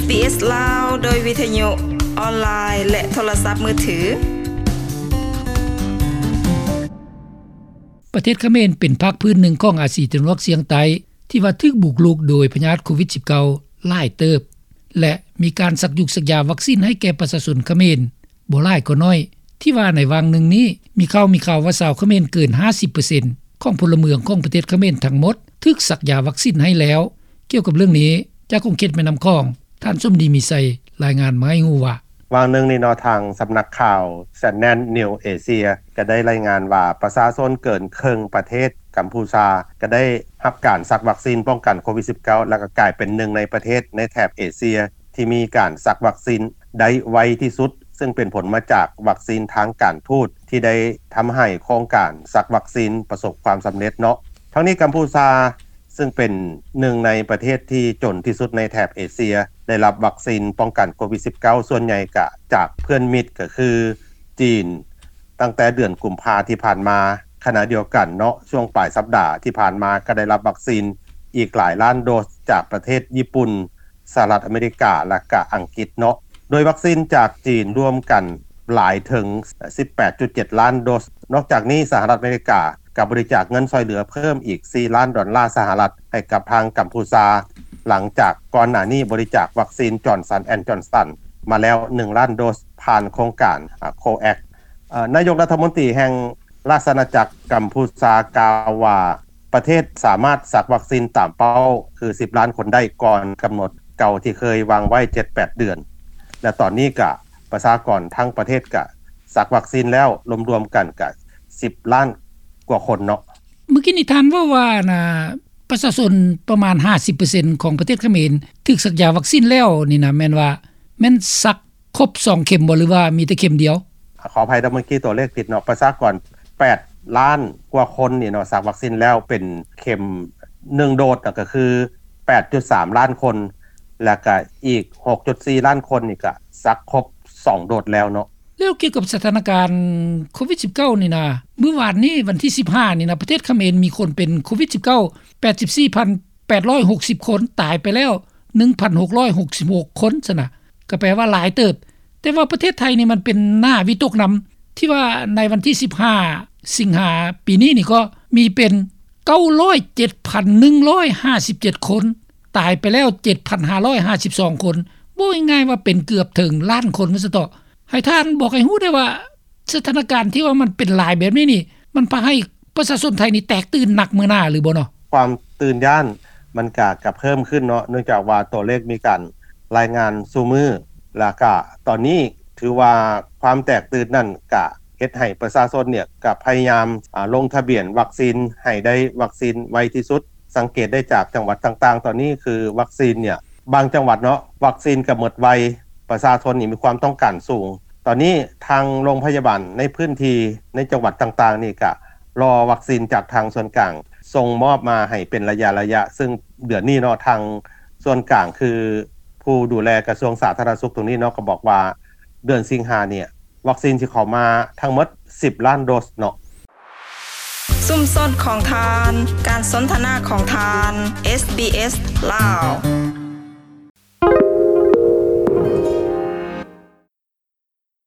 ເອສ ລາວ ໂດຍວິທະຍຸອອນລາຍ ແລະ ໂທລະສັບມືຖື. ປະເທດຂະເໝນເປັນພາກພື້ນໜຶ່ງຂອງອາຊີຕາເວັນອອກສ່ຽງໃຕ້ ທີ່ວ່າຖືກບຸກລຸກໂດຍພະຍາດໂຄວິດສິບເກົ້າຫຼາຍເຕີບ ແລະ ມີການສັກຢູກສັກຢາວັກຊິນໃຫ້ແກ່ປະຊາຊົນຂະເໝນບໍ່ຫຼາຍກໍໜ້ອຍ ທີ່ວ່າໃນຫວ່າງໜຶ່ງນີ້ ມີຂ່າວ ມີຂ່າວວ່າຊາວຂະເໝນເກີນຫ້າສິບເປີເຊັນຂອງພົນລະເມືອງຂອງປະເທດຂະເໝນທັງໝົດ ຖືກສັກຢາວັກຊິນໃຫ້ແລ້ວ. ກ່ຽວກັບເລື່ອງນີ້ ຈາກຂົງເຂດແມ່ນ້ຳຂອງ ທ່ານສົມດີ ມີໄຊ ລາຍງານມາໃຫ້ຮູ້ວ່າ ຫວ່າງໜຶ່ງນີ້ເນາະ ທາງສຳນັກຂ່າວ Channel News Asia ກໍໄດ້ລາຍງານວ່າ ປະຊາຊົນເກີນເຄິ່ງປະເທດກຳພູຊາ ກໍໄດ້ຮັບການສັກວັກຊິນປ້ອງກັນໂຄວິດສິບເກົ້າ ແລ້ວກໍກາຍເປັນໜຶ່ງໃນປະເທດໃນແຖບເອເຊຍ ທີ່ມີການສັກວັກຊິນໄດ້ໄວທີ່ສຸດ ຊຶ່ງເປັນຜົນມາຈາກວັກຊິນທາງການທູດ ທີ່ໄດ້ທຳໃຫ້ໂຄງການສັກວັກຊິນປະສົບຄວາມສຳເລັດເນາະ. ທັງນີ້ກຳພູຊາ ຊຶ່ງເປັນໜຶ່ງໃນປະເທດທີ່ຈົນທີ່ສຸດໃນແຖບເອເຊຍ ໄດ້ຮັບວັກຊິນປ້ອງກັນໂຄວິດສິບເກົ້າ ສ່ວນໃຫຍ່ກະຈາກເພື່ອນມິດ ກໍຄືຈີນ ຕັ້ງແຕ່ເດືອນກຸມພາທີ່ຜ່ານມາ. ຂະນະດຽວກັນເນາະ ຊ່ວງປາຍສັບດາທີ່ຜ່ານມາກໍໄດ້ຮັບວັກຊິນອີກຫຼາຍລ້ານໂດສຈາກປະເທດຍີ່ປຸ່ນ, ສະຫະລັດອາເມລິກາ ແລະ ກະອັງກິດເນາະ. ໂດຍວັກຊິນຈາກຈີນລວມກັນຫຼາຍເຖິງສິບແປດຈຸດເຈັດລ້ານໂດສ. ນອກຈາກນີ້ ສະຫະລັດອາເມລິກາກໍບໍລິຈາກເງິນຊ່ອຍເຫຼືອເພີ່ມອີກສີ່ລ້ານດອນລາສະຫະລັດໃຫ້ກັບທາງກຳພູຊາ ຫຼັງຈາກກ່ອນໜ້ານີ້ບໍລິຈາກວັກຊິນ Johnson and Johnson ມາແລ້ວໜຶ່ງລ້ານໂດສ ຜ່ານໂຄງການ COVAX. ນາຍົກລັດຖະມົນຕີແຫ່ງ ລາຊະອານາຈັກກຳພູຊາກ່າວວ່າ ປະເທດສາມາດສັກວັກຊິນຕາມເປົ້າຄືສິບລ້ານຄົນໄດ້ ກ່ອນກຳນົດເກົ່າທີ່ເຄີຍວາງໄວ້ເຈັດແປດເດືອນ ແລະ ຕອນນີ້ກະປະຊາກອນທັງປະເທດກະສັກວັກຊິນແລ້ວ ລວມໆກັນກະສິບລ້ານກວ່າຄົນເນາະ. ເມື່ອກີ້ນີ້ທ່ານເວົ້າວ່ານະ ປະຊາຊົນປະມານຫ້າສິບເປີເຊັນຂອງປະເທດຂະເໝນຖືກສັກຢາວັກຊິນແລ້ວນີ້ນະ ແມ່ນວ່າ ແມ່ນສັກຄົບສອງເຂັມບໍ່ ຫຼືວ່າມີແຕ່ເຂັມດຽວ? ຂໍອະໄພເດີ ເມື່ອກີ້ຕົວເລກຜິດເນາະ ປະຊາກອນແປດລ້ານກວ່າຄົນນີ້ເນາະ ສັກວັກຊິນແລ້ວເປັນເຂັມໜຶ່ງໂດສນະ ກໍຄືແປດຈຸດສາມລ້ານຄົນ ແລ້ວກະອີກຫົກຈຸດສີ່ລ້ານຄົນນີ້ກະສັກຄົບສອງໂດສແລ້ວເນາະ. ແລ້ວກ່ຽວກັບສະຖານະການໂຄວິດສິບເກົ້ານີ້ນະ ມື້ວານນີ້ວັນທີສິບຫ້ານີ້ນະ ປະເທດຂະເໝນມີຄົນເປັນໂຄວິດສິບເກົ້າ ແປດສິບສີ່ພັນແປດຮ້ອຍຫົກສິບຄົນ ຕາຍໄປແລ້ວໜຶ່ງພັນຫົກຮ້ອຍຫົກສິບຫົກຄົນຊັ້ນນະ ກໍແປວ່າຫຼາຍເຕີບ. ແຕ່ວ່າປະເທດໄທນີ້ມັນເປັນໜ້າວິຕົກນຳ ທີ່ວ່າໃນວັນທີສິບຫ້າສິງຫາປີນີ້ນີ້ກໍມີເປັນເກົ້າຮ້ອຍເຈັດພັນໜຶ່ງຮ້ອຍຫ້າສິບເຈັດຄົນ ຕາຍໄປແລ້ວເຈັດພັນຫ້າຮ້ອຍຫ້າສິບສອງຄົນ ເວົ້າງ່າຍໆວ່າເປັນເກືອບເຖິງລ້ານຄົນວ່າຊັ້ນເຖາະ. ໃຫ້ທ່ານບອກໃຫ້ຮູ້ໄດ້ວ່າ ສະຖານະການທີ່ວ່າມັນເປັນຫຼາຍແບບນີ້ນີ້ ມັນພາໃຫ້ປະຊາຊົນໄທນີ້ແຕກຕື່ນໜັກເມື່ອໜ້າຫຼືບໍ່ເນາະ? ຄວາມຕື່ນຢ້ານມັນກະ ກະເພີ່ມຂຶ້ນເນາະ ເນື່ອງຈາກວ່າຕົວເລກມີການລາຍງານສູ່ມື້ ແລ້ວກະຕອນນີ້ຖືວ່າຄວາມແຕກຕື່ນນັ້ນກະເຮັດໃຫ້ປະຊາຊົນເນ່ຍກະພະຍາຍາມ ອາ ລົງທະບຽນວັກຊິນໃຫ້ໄດ້ວັກຊິນໄວທີ່ສຸດ. ສັງເກດໄດ້ຈາກຈັງຫວັດຕ່າງໆ ຕອນນີ້ຄືວັກຊິນເນ່ຍ ບາງຈັງຫວັດເນາະ ວັກຊິນກະໝົດໄວ ປະຊາຊົນນີ້ມີຄວາມຕ້ອງການສູງ. ຕອນນີ້ທາງໂລງພະຍາບານໃນພື້ນທີ່ໃນຈັງຫວັດຕ່າງໆນີ້ກະລໍວັກຊິນຈາກທາງສ່ວນກາງສົ່ງມອບມາໃຫ້ເປັນໄລຍະໆ ຊຶ່ງເດືອນນີ້ເນາະ ທາງສ່ວນກາງຄືຜູ້ດູແລກະຊວງສາທາລະນະສຸກຕົງນີ້ເນາະ ກະບອກວ່າເດືອນສິງຫາເນ່ຍ ວັກຊິນຊິເຂົ້າມາທັງໝົດສິບລ້ານໂດສເນາະ. ຊຸມຊົນຂອງທ່ານ, ການສົນທະນາຂອງທ່ານ, ເອສບີເອສ ລາວ.